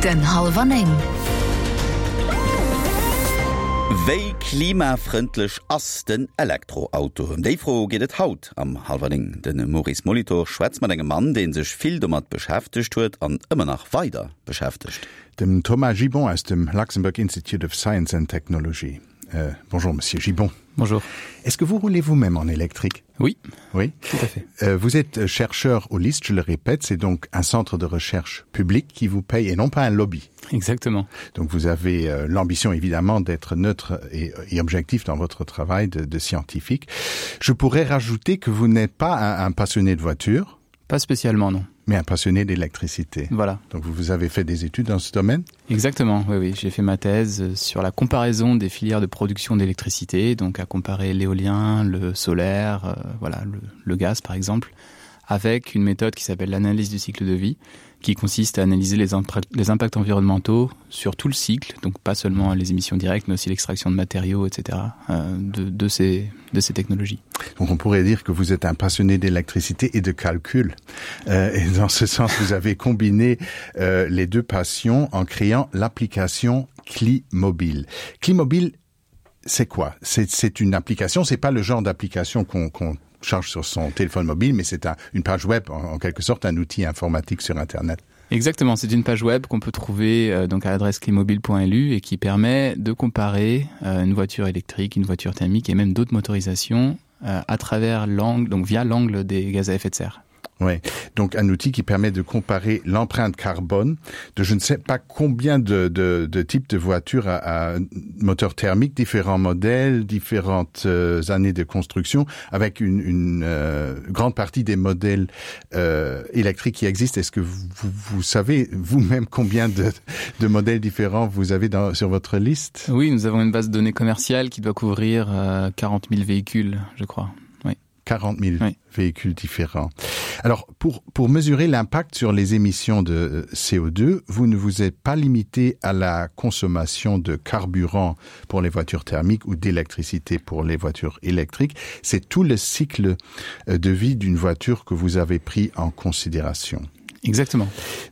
Den Hallwer 9. Wéi klimafrëndlech ass den Elektroauto? Ëm déi Fro geet et haut am Hallwer 9. De Maurice Molitor schwätzt mat engem Mann, dee sech vill domat beschäftegt huet an ëmmer nach weider beschäftegt. Dem Thomas Gibon aus dem Luxembourg Institute of Science and Technology. Euh, bonjour Monsieur Gibon. Bonjour. Est-ce que vous roulez vous-même en électrique Oui. Oui. Tout à fait. Euh, vous êtes euh, chercheur au LIST, je le répète, c'est donc un centre de recherche public qui vous paye et non pas un lobby. Exactement. Donc vous avez euh, l'ambition évidemment d'être neutre et, et objectif dans votre travail de, de scientifique. Je pourrais rajouter que vous n'êtes pas un, un passionné de voiture. Pas spécialement non. Mais un passionné d'électricité. Voilà. Donc vous, vous avez fait des études dans ce domaine Exactement, oui, oui. j'ai fait ma thèse sur la comparaison des filières de production d'électricité, donc à comparer l'éolien, le solaire, euh, voilà, le, le gaz par exemple, avec une méthode qui s'appelle l'analyse du cycle de vie, qui consiste à analyser les, les impacts environnementaux sur tout le cycle, donc pas seulement les émissions directes, mais aussi l'extraction de matériaux, etc., euh, de, de, ces, de ces technologies. Donc on pourrait dire que vous êtes un passionné d'électricité et de calcul. Euh, et dans ce sens, vous avez combiné euh, les deux passions en créant l'application Climobile. Climobile, c'est quoi C'est une application, c'est pas le genre d'application qu'on qu charge sur son téléphone mobile, mais c'est un, une page web, en, en quelque sorte un outil informatique sur Internet. Exactement, c'est une page web qu'on peut trouver euh, donc à l'adresse climobile.lu et qui permet de comparer euh, une voiture électrique, une voiture thermique et même d'autres motorisations euh, à travers l'angle donc via l'angle des gaz à effet de serre. Oui, donc un outil qui permet de comparer l'empreinte carbone de je ne sais pas combien de, de, de types de voitures à, à moteur thermique, différents modèles, différentes euh, années de construction, avec une, une euh, grande partie des modèles euh, électriques qui existent. Est-ce que vous, vous savez vous-même combien de, de modèles différents vous avez dans, sur votre liste Oui, nous avons une base de données commerciale qui doit couvrir euh, 40 000 véhicules, je crois. Oui. 40 000 oui. véhicules différents. Alors pour, pour mesurer l'impact sur les émissions de euh, CO2, vous ne vous êtes pas limité à la consommation de carburant pour les voitures thermiques ou d'électricité pour les voitures électriques. C'est tout le cycle euh, de vie d'une voiture que vous avez pris en considération. Exactement.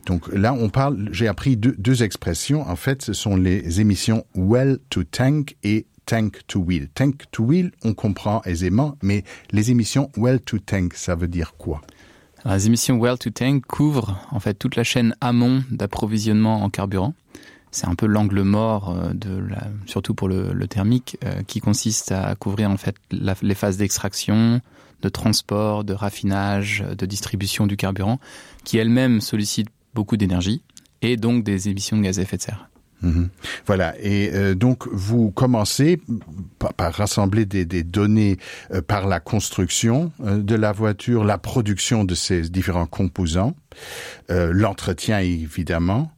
Donc là on parle j'ai appris deux, deux expressions en fait ce sont les émissions well to tank et tank to wheel. Tank to wheel, on comprend aisément, mais les émissions well to tank, ça veut dire quoi Alors, Les émissions well to tank couvrent en fait toute la chaîne amont d'approvisionnement en carburant. C'est un peu l'angle mort euh, de la, surtout pour le, le thermique euh, qui consiste à couvrir en fait la, les phases d'extraction, de transport, de raffinage, de distribution du carburant, qui elle-même sollicite beaucoup d'énergie et donc des émissions de gaz à effet de serre. Mmh. Voilà et euh, donc vous commencez par, par rassembler des, des données euh, par la construction euh, de la voiture, la production de ces différents composants, euh, l'entretien évidemment,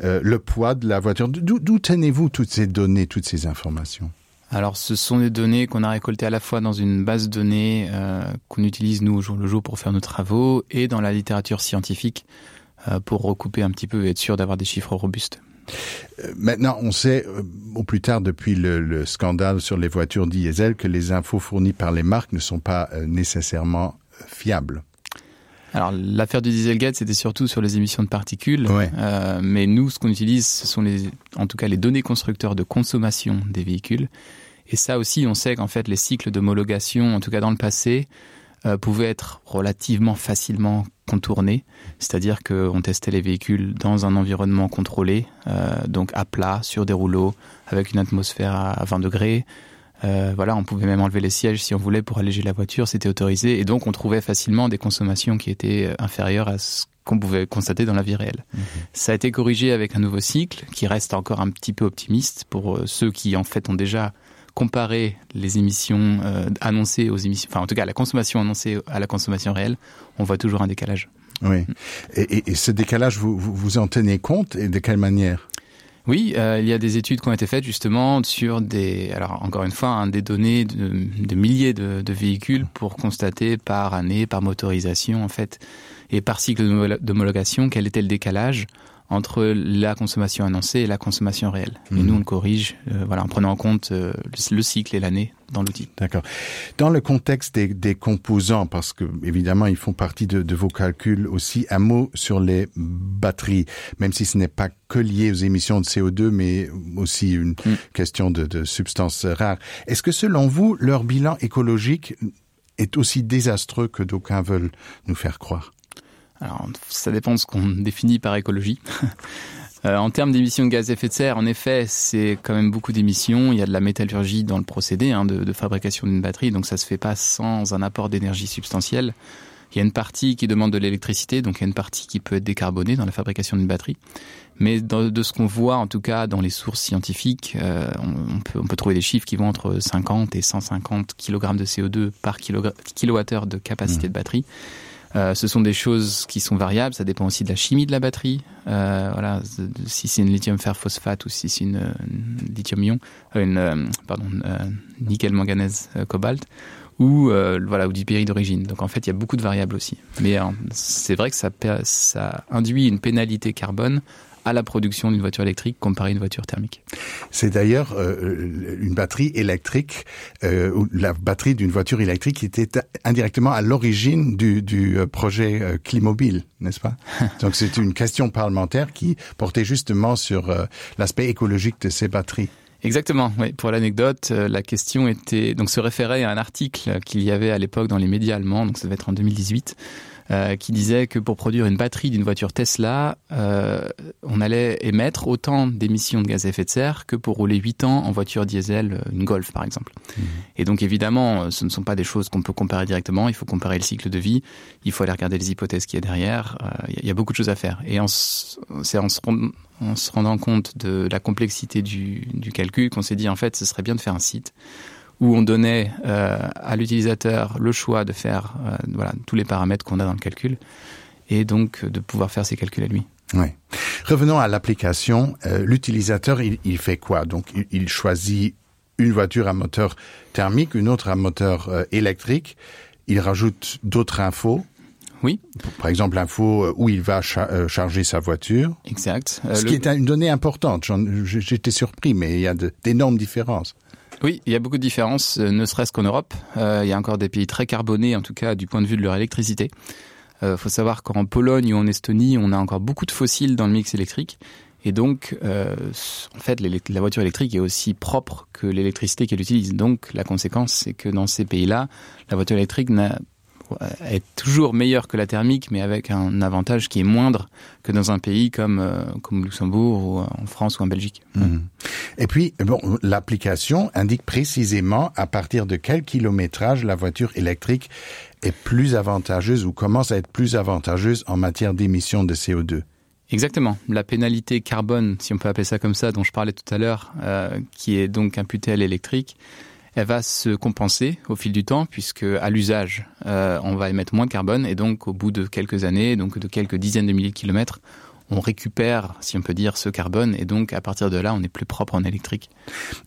euh, le poids de la voiture. D'où tenez-vous toutes ces données, toutes ces informations Alors ce sont des données qu'on a récoltées à la fois dans une base de données euh, qu'on utilise nous au jour le jour pour faire nos travaux et dans la littérature scientifique euh, pour recouper un petit peu et être sûr d'avoir des chiffres robustes. Euh, maintenant, on sait euh, au plus tard depuis le, le scandale sur les voitures diesel que les infos fournies par les marques ne sont pas euh, nécessairement fiables. Alors l'affaire du dieselgate c'était surtout sur les émissions de particules ouais. euh, mais nous ce qu'on utilise ce sont les en tout cas les données constructeurs de consommation des véhicules et ça aussi on sait qu'en fait les cycles d'homologation en tout cas dans le passé euh, pouvaient être relativement facilement contournés c'est à dire qu'on testait les véhicules dans un environnement contrôlé euh, donc à plat sur des rouleaux avec une atmosphère à 20 degrés euh, voilà on pouvait même enlever les sièges si on voulait pour alléger la voiture c'était autorisé et donc on trouvait facilement des consommations qui étaient euh, inférieures à ce qu'on pouvait constater dans la vie réelle mmh. ça a été corrigé avec un nouveau cycle qui reste encore un petit peu optimiste pour euh, ceux qui en fait ont déjà comparé les émissions euh, annoncées aux émissions enfin en tout cas la consommation annoncée à la consommation réelle on voit toujours un décalage oui et, et, et ce décalage vous, vous vous en tenez compte et de quelle manière Oui, euh, il y a des études qui ont été faites justement sur des alors encore une fois hein, des données de, de milliers de, de véhicules pour constater par année, par motorisation en fait et par cycle d'homologation quel était le décalage. entre la consommation annoncée et la consommation réelle. Mmh. Et nous on le corrige euh, voilà, en prenant en compte euh, le, le cycle et l'année dans l'outil. D'accord. Dans le contexte des, des composants, parce que évidemment ils font partie de, de vos calculs aussi, un mot sur les batteries, même si ce n'est pas que lié aux émissions de CO2, mais aussi une mm. question de, de substances rares. Est-ce que selon vous, leur bilan écologique est aussi désastreux que d'aucuns veulent nous faire croire Alors, ça dépend de ce qu'on définit par écologie. Euh, en termes d'émissions de gaz à effet de serre, en effet, c'est quand même beaucoup d'émissions. Il y a de la métallurgie dans le procédé hein, de, de fabrication d'une batterie, donc ça se fait pas sans un apport d'énergie substantielle. Il y a une partie qui demande de l'électricité, donc il y a une partie qui peut être décarbonée dans la fabrication d'une batterie. Mais dans, de ce qu'on voit en tout cas dans les sources scientifiques, euh, on, on, peut, on peut trouver des chiffres qui vont entre 50 et 150 kg de CO2 par kilowattheure de capacité mmh. de batterie. Euh, ce sont des choses qui sont variables, ça dépend aussi de la chimie de la batterie. Euh, voilà, si c'est une lithium fer phosphate ou si c'est une, une lithium ion, euh, une, euh, pardon, euh, nickel manganèse euh, cobalt ou euh, voilà ou du péri d'origine. Donc en fait il y a beaucoup de variables aussi. Mais euh, c'est vrai que ça, ça induit une pénalité carbone à la production d'une voiture électrique comparée à une voiture thermique. C'est d'ailleurs euh, une batterie électrique euh, ou la batterie d'une voiture électrique qui était indirectement à l'origine du, du euh, projet euh, Climobile, n'est-ce pas Donc c'est une question parlementaire qui portait justement sur euh, l'aspect écologique de ces batteries. Exactement oui. Pour l'anecdote, euh, la question était donc se référait à un article qu'il y avait à l'époque dans les médias allemands, donc ça devait être en 2018 euh, qui disait que pour produire une batterie d'une voiture Tesla, euh, on allait émettre autant d'émissions de gaz à effet de serre que pour rouler 8 ans en voiture diesel, euh, une Golf par exemple. Mmh. Et donc évidemment, euh, ce ne sont pas des choses qu'on peut comparer directement, il faut comparer le cycle de vie, il faut aller regarder les hypothèses qu'il y a derrière, euh, il euh, y a beaucoup de choses à faire. Et c'est en se en se rendant compte de la complexité du, du calcul qu'on s'est dit en fait ce serait bien de faire un site où on donnait euh, à l'utilisateur le choix de faire euh, voilà, tous les paramètres qu'on a dans le calcul et donc de pouvoir faire ses calculs à lui. Oui. Revenons à l'application, euh, l'utilisateur il, il fait quoi Donc il, il choisit une voiture à moteur thermique, une autre à moteur euh, électrique, il rajoute d'autres infos. Oui. Par exemple l'info euh, où il va cha euh, charger sa voiture. Exact. Euh, Ce le... qui est une donnée importante. J'étais surpris, mais il y a d'énormes différences. Oui, il y a beaucoup de différences, euh, ne serait-ce qu'en Europe. Euh, il y a encore des pays très carbonés, en tout cas du point de vue de leur électricité. Euh, faut savoir qu'en Pologne ou en Estonie, on a encore beaucoup de fossiles dans le mix électrique. Et donc, euh, en fait, la voiture électrique est aussi propre que l'électricité qu'elle utilise. Donc, la conséquence, c'est que dans ces pays-là, la voiture électrique n'a est toujours meilleure que la thermique, mais avec un avantage qui est moindre que dans un pays comme, euh, comme Luxembourg ou en France ou en Belgique. Mmh. Et puis bon, l'application indique précisément à partir de quel kilométrage la voiture électrique est plus avantageuse ou commence à être plus avantageuse en matière d'émissions de CO2. Exactement. La pénalité carbone, si on peut appeler ça comme ça, dont je parlais tout à l'heure, euh, qui est donc imputée à l'électrique, elle va se compenser au fil du temps puisque à l'usage euh, on va émettre moins de carbone et donc au bout de quelques années donc de quelques dizaines de milliers de kilomètres on récupère si on peut dire ce carbone et donc à partir de là on est plus propre en électrique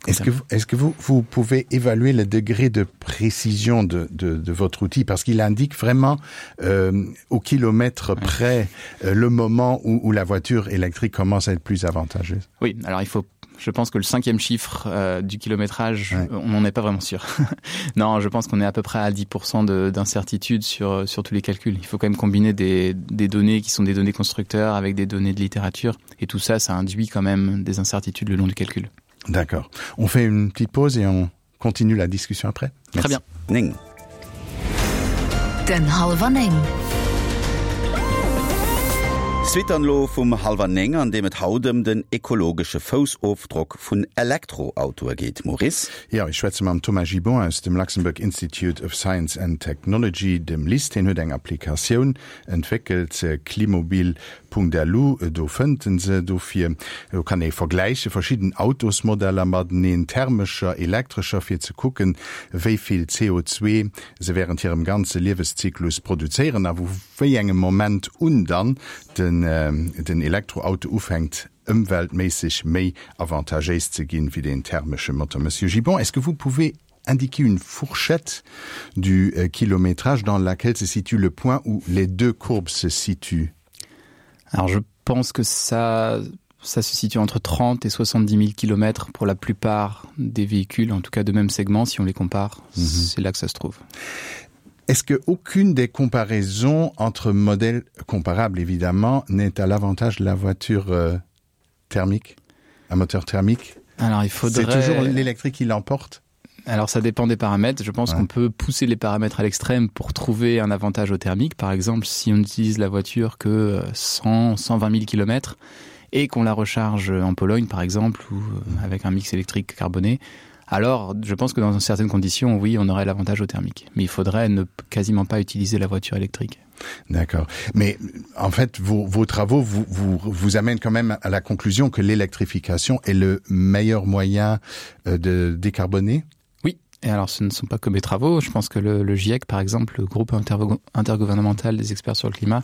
est-ce que vous, est-ce que vous vous pouvez évaluer le degré de précision de, de, de votre outil parce qu'il indique vraiment euh, au kilomètre ouais. près euh, le moment où, où la voiture électrique commence à être plus avantageuse oui alors il faut je pense que le cinquième chiffre euh, du kilométrage ouais. on n'en est pas vraiment sûr non je pense qu'on est à peu près à 10% d'incertitude sur sur tous les calculs il faut quand même combiner des, des données qui sont des données constructeurs avec des données de littérature et tout ça ça induit quand même des incertitudes le long du calcul d'accord on fait une petite pause et on continue la discussion après Merci. très bien Ning. Den Hallwer 9. Suite dann elo vum Hallwer 9, an deem et haut ëm den ekologesche Foussofdrock vun Elektroautoe geet. Maurice? Jo, ech schwätze mam Thomas Gibon aus dem Luxembourg Institute of Science and Technology, dem LIST. Hien huet eng Applikatioun entwéckelt, Climobil .lu. Do fënnt en se. Dofir, do kann ee vergläiche verschidden Autosmodeller mateneen, thermescher, elektrescher, fir ze kucken, wéi vill CO2 se während hirem ganze Lieweszyklus produzéieren a vu wéi engem Moment un dann den den Elektroauto ufänkt ëmweltméisseg méi avantagéis ze ginn wéi deen thermesche Motor. Monsieur Gibon, est-ce que vous pouvez indiquer une fourchette du kilométrage dans laquelle se situe le point où les deux courbes se situent? Alors je pense que ça ça se situe entre 30 et 70 000 km pour la plupart des véhicules, en tout cas de même segment si on les compare, mm -hmm. c'est là que ça se trouve. Est-ce que aucune des comparaisons entre modèles comparables évidemment n'est à l'avantage de la voiture euh, thermique, un moteur thermique Alors il faudrait C'est toujours l'électrique qui l'emporte Alors ça dépend des paramètres. Je pense ouais. qu'on peut pousser les paramètres à l'extrême pour trouver un avantage au thermique. Par exemple, si on utilise la voiture que 100 120 000 km et qu'on la recharge en Pologne par exemple ou euh, avec un mix électrique carboné, alors je pense que dans certaines conditions, oui, on aurait l'avantage au thermique. Mais il faudrait ne quasiment pas utiliser la voiture électrique. D'accord. Mais en fait, vos, vos travaux vous, vous, vous amènent quand même à la conclusion que l'électrification est le meilleur moyen euh, de décarboner Oui. Et alors ce ne sont pas que mes travaux. Je pense que le, le GIEC, par exemple, le groupe intergouvernemental des experts sur le climat,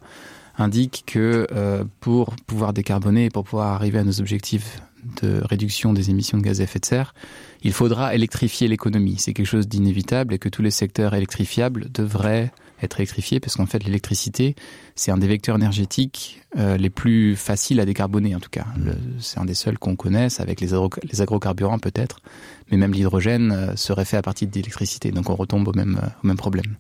indique que euh, pour pouvoir décarboner et pour pouvoir arriver à nos objectifs de réduction des émissions de gaz à effet de serre, il faudra électrifier l'économie. C'est quelque chose d'inévitable et que tous les secteurs électrifiables devraient être électrifiés parce qu'en fait l'électricité c'est un des vecteurs énergétiques euh, les plus faciles à décarboner en tout cas. C'est un des seuls qu'on connaisse avec les, agro les agrocarburants peut-être, mais même l'hydrogène euh, serait fait à partir d'électricité donc on retombe au même, euh, au même problème.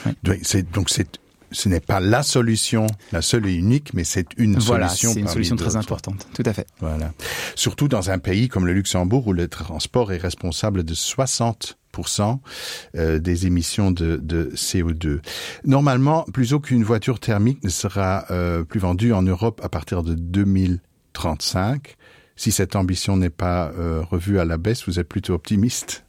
Oui. Donc c'est ce n'est pas la solution, la seule et unique, mais c'est une voilà, solution. une solution très importante, tout à fait. Voilà. Surtout dans un pays comme le Luxembourg où le transport est responsable de 60 euh, des émissions de, de CO2. Normalement, plus aucune voiture thermique ne sera euh, plus vendue en Europe à partir de 2035. Si cette ambition n'est pas euh, revue à la baisse, vous êtes plutôt optimiste.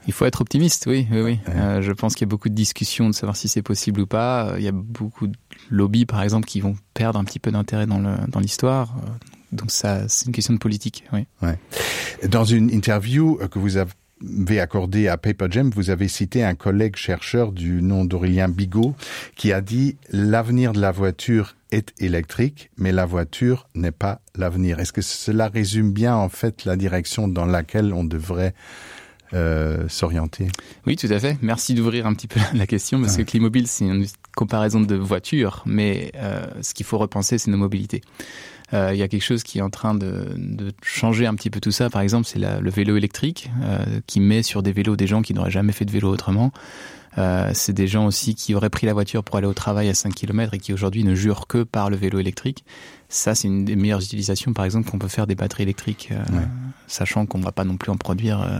Il faut être optimiste, oui, oui, oui. Ouais. Euh, je pense qu'il y a beaucoup de discussions de savoir si c'est possible ou pas. Il y a beaucoup de lobbies, par exemple, qui vont perdre un petit peu d'intérêt dans l'histoire. Donc ça c'est une question de politique. Oui. Ouais. Dans une interview que vous avez accordé à Paper Jam, vous avez cité un collègue chercheur du nom d'Aurélien Bigot qui a dit l'avenir de la voiture est électrique, mais la voiture n'est pas l'avenir. Est-ce que cela résume bien en fait la direction dans laquelle on devrait euh, s'orienter Oui, tout à fait. Merci d'ouvrir un petit peu la question parce ah. que Climobile, c'est une comparaison de voiture, mais euh, ce qu'il faut repenser, c'est nos mobilités. Euh, il y a quelque chose qui est en train de, de changer un petit peu tout ça. Par exemple, c'est le vélo électrique euh, qui met sur des vélos des gens qui n'auraient jamais fait de vélo autrement. Euh, c'est des gens aussi qui auraient pris la voiture pour aller au travail à 5 km et qui aujourd'hui ne jurent que par le vélo électrique. Ça, c'est une des meilleures utilisations, par exemple, qu'on peut faire des batteries électriques, euh, ouais. sachant qu'on ne va pas non plus en produire euh,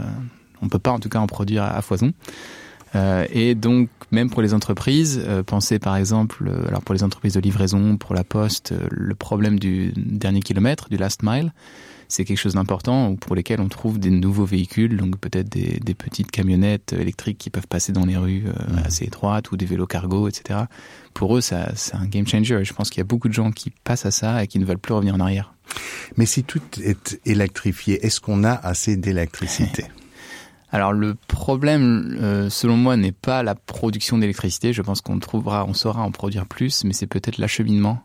on peut pas en tout cas en produire à, à foison. Euh, et donc même pour les entreprises, euh, pensez par exemple euh, alors pour les entreprises de livraison, pour la poste, euh, le problème du dernier kilomètre, du last mile, c'est quelque chose d'important pour lesquels on trouve des nouveaux véhicules, donc peut-être des, des petites camionnettes électriques qui peuvent passer dans les rues euh, mmh. assez étroites ou des vélos cargo, etc. Pour eux, c'est un game changer et je pense qu'il y a beaucoup de gens qui passent à ça et qui ne veulent plus revenir en arrière. Mais si tout est électrifié, est-ce qu'on a assez d'électricité? Alors le problème euh, selon moi n'est pas la production d'électricité, je pense qu'on trouvera on saura en produire plus, mais c'est peut-être l'acheminement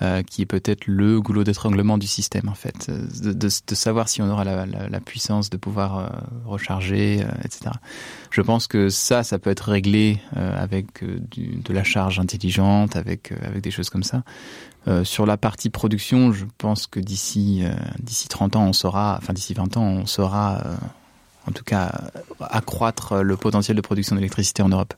euh, qui est peut-être le goulot d'étranglement du système en fait euh, de, de, de savoir si on aura la, la, la puissance de pouvoir euh, recharger euh, etc. Je pense que ça ça peut être réglé euh, avec euh, du, de la charge intelligente avec euh, avec des choses comme ça. Euh, sur la partie production, je pense que d'ici euh, d'ici 30 ans on saura enfin d'ici 20 ans on saura euh, en tout cas accroître le potentiel de production d'électricité en Europe.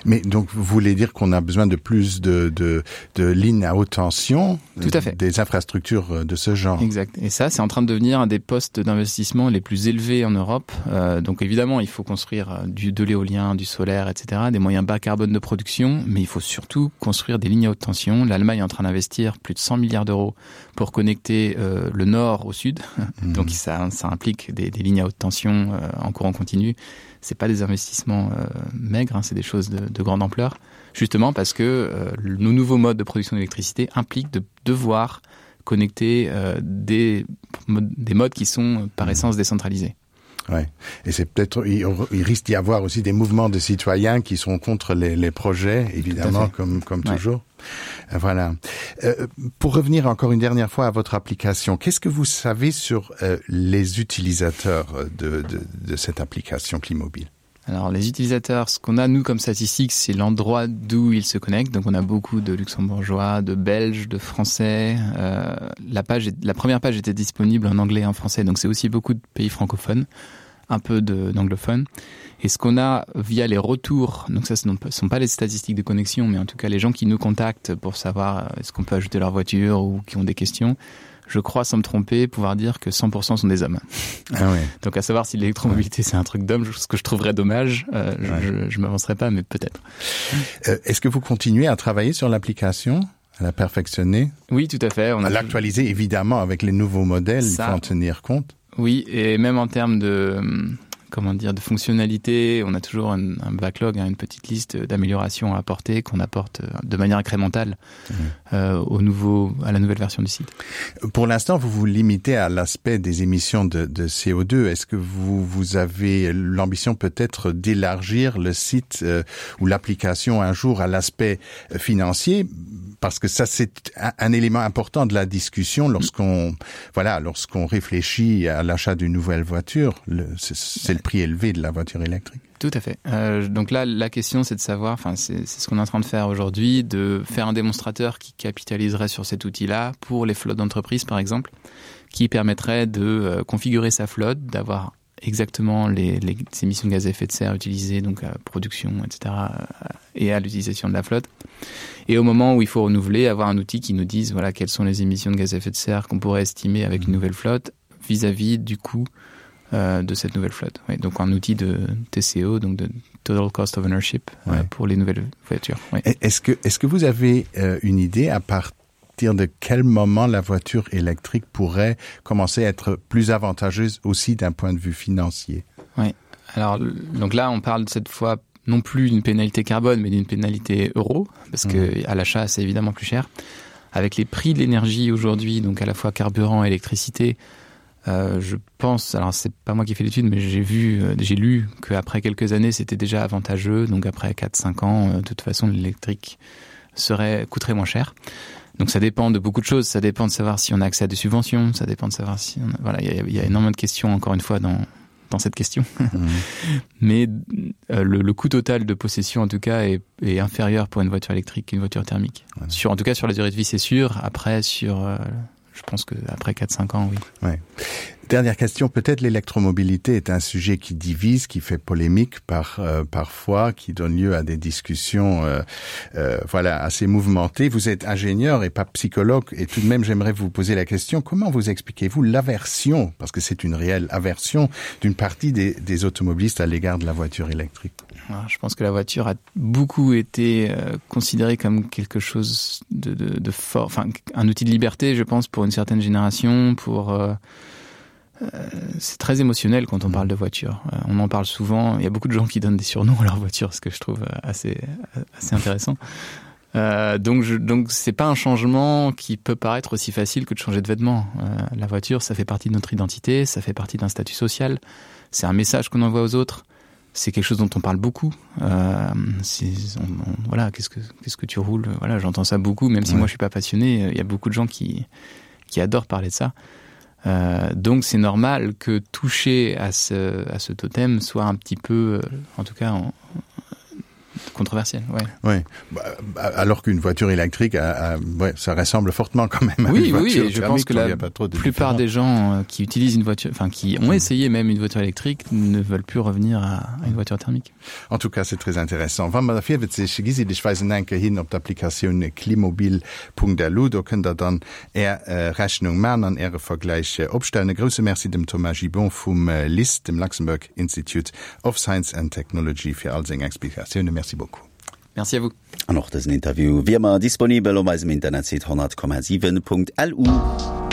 Mais donc vous voulez dire qu'on a besoin de plus de, de, de lignes à haute tension, tout à fait. des infrastructures de ce genre. Exact. Et ça, c'est en train de devenir un des postes d'investissement les plus élevés en Europe. Euh, donc évidemment, il faut construire du, de l'éolien, du solaire, etc., des moyens bas carbone de production, mais il faut surtout construire des lignes à haute tension. L'Allemagne est en train d'investir plus de 100 milliards d'euros pour connecter euh, le nord au sud. Mmh. Donc ça, ça implique des, des lignes à haute tension euh, en courant continu. C'est pas des investissements euh, maigres, c'est des choses de, de grande ampleur, justement parce que euh, nos nouveaux modes de production d'électricité impliquent de devoir connecter euh, des, des modes qui sont par mmh. essence décentralisés. Ouais. Et c'est peut-être il, il risque d'y avoir aussi des mouvements de citoyens qui sont contre les, les projets, évidemment, comme, comme ouais. toujours. Euh, voilà. Euh, pour revenir encore une dernière fois à votre application, qu'est-ce que vous savez sur euh, les utilisateurs de, de, de cette application Climobile? Alors les utilisateurs, ce qu'on a nous comme statistique, c'est l'endroit d'où ils se connectent. Donc on a beaucoup de luxembourgeois, de belges, de français. Euh, la, page, la première page était disponible en anglais et en français, donc c'est aussi beaucoup de pays francophones, un peu d'anglophones. Et ce qu'on a via les retours, donc ça ce ne sont pas les statistiques de connexion, mais en tout cas les gens qui nous contactent pour savoir euh, est-ce qu'on peut ajouter leur voiture ou qui ont des questions, je crois sans me tromper pouvoir dire que 100% sont des hommes. Ah ouais. Donc à savoir si l'électromobilité ouais. c'est un truc d'homme, ce que je trouverais dommage, euh, je, ouais. je, je m'avancerai pas mais peut-être. Euh, est-ce que vous continuez à travailler sur l'application à la perfectionner Oui, tout à fait. On a l'actualiser évidemment avec les nouveaux modèles, Ça, il faut en tenir compte. Oui, et même en termes de comment dire de fonctionnalité on a toujours un, un backlog une petite liste d'améliorations à apporter qu'on apporte euh, de manière incrémentale mmh. euh, au nouveau à la nouvelle version du site pour l'instant vous vous limitez à l'aspect des émissions de, de co2 est-ce que vous vous avez l'ambition peut-être d'élargir le site euh, ou l'application un jour à l'aspect euh, financier parce que ça c'est un, un élément important de la discussion lorsqu'on voilà lorsqu'on réfléchit à l'achat d'une nouvelle voiture c'est le prix élevé de la voiture électrique. Tout à fait. Euh, donc là la question c'est de savoir enfin c'est ce qu'on est en train de faire aujourd'hui de faire un démonstrateur qui capitaliserait sur cet outil là pour les flottes d'entreprise par exemple qui permettrait de euh, configurer sa flotte d'avoir exactement les, les émissions de gaz à effet de serre utilisées donc à production etc euh, et à l'utilisation de la flotte et au moment où il faut renouveler avoir un outil qui nous dise voilà quelles sont les émissions de gaz à effet de serre qu'on pourrait estimer avec une nouvelle flotte vis-à-vis -vis du coût euh, de cette nouvelle flotte oui, donc un outil de TCO donc de total cost of ownership euh, ouais. euh, pour les nouvelles voitures oui. est-ce que est-ce que vous avez euh, une idée à partir de quel moment la voiture électrique pourrait commencer à être plus avantageuse aussi d'un point de vue financier oui alors donc là on parle cette fois non plus d'une pénalité carbone mais d'une pénalité euro parce mmh. que à l'achat c'est évidemment plus cher avec les prix de l'énergie aujourd'hui donc à la fois carburant électricité euh, je pense alors c'est pas moi qui fais l'étude mais j'ai vu euh, j'ai lu que après quelques années c'était déjà avantageux donc après 4 5 ans euh, de toute façon l'électrique serait coûterait moins cher donc ça dépend de beaucoup de choses ça dépend de savoir si on a accès à des subventions ça dépend de savoir si on a, voilà il y, y a énormément de questions encore une fois dans dans cette question mmh. mais euh, le, le coût total de possession en tout cas est, est inférieur pour une voiture électrique qu'une voiture thermique ouais. sur en tout cas sur la durée de vie c'est sûr après sur euh, je pense que après 4 5 ans oui ouais. Dernière question, peut-être l'électromobilité est un sujet qui divise, qui fait polémique par, euh, parfois, qui donne lieu à des discussions euh, euh, voilà, assez mouvementées. Vous êtes ingénieur et pas psychologue et tout de même j'aimerais vous poser la question, comment vous expliquez-vous l'aversion, parce que c'est une réelle aversion d'une partie des, des automobilistes à l'égard de la voiture électrique Alors, Je pense que la voiture a beaucoup été euh, considérée comme quelque chose de, de, de fort, enfin un outil de liberté, je pense, pour une certaine génération, pour euh, Euh, c'est très émotionnel quand on parle de voiture. Euh, on en parle souvent, il y a beaucoup de gens qui donnent des surnoms à leur voiture, ce que je trouve euh, assez, assez intéressant. Euh, donc je, donc c'est pas un changement qui peut paraître aussi facile que de changer de vêtements. Euh, la voiture, ça fait partie de notre identité, ça fait partie d'un statut social, c'est un message qu'on envoie aux autres, c'est quelque chose dont on parle beaucoup. Euh, on, on, voilà, qu'est-ce que, qu'est-ce que tu roules voilà, j'entends ça beaucoup, même si ouais. moi je suis pas passionné, il y a beaucoup de gens qui, qui adorent parler de ça. Euh, donc c'est normal que toucher à ce, à ce totem soit un petit peu euh, en tout cas en, controversiel ouais. Ouais. Bah, alors qu'une voiture électrique a, a, ouais, ça ressemble fortement quand même à oui une oui je pense que la pas trop de plupart des gens euh, qui utilisent une voiture enfin qui ont mmh. essayé même une voiture électrique ne veulent plus revenir à, à une voiture thermique en tout cas c'est très intéressant wann man dafür hin op d'Applikatioun klimobil.lu do kënnt der dann Är Rechnung man an Äre Vergläich opstellen. E grousse Merci dem Thomas Gibon vum LIST, dem Luxembourg Institute of Science and Technology, fir all seng Explikatiounen. Merci beaucoup. Merci à vous. An och dësen Interview wier ëmmer disponibel op eisem Internetsite 100,7.lu.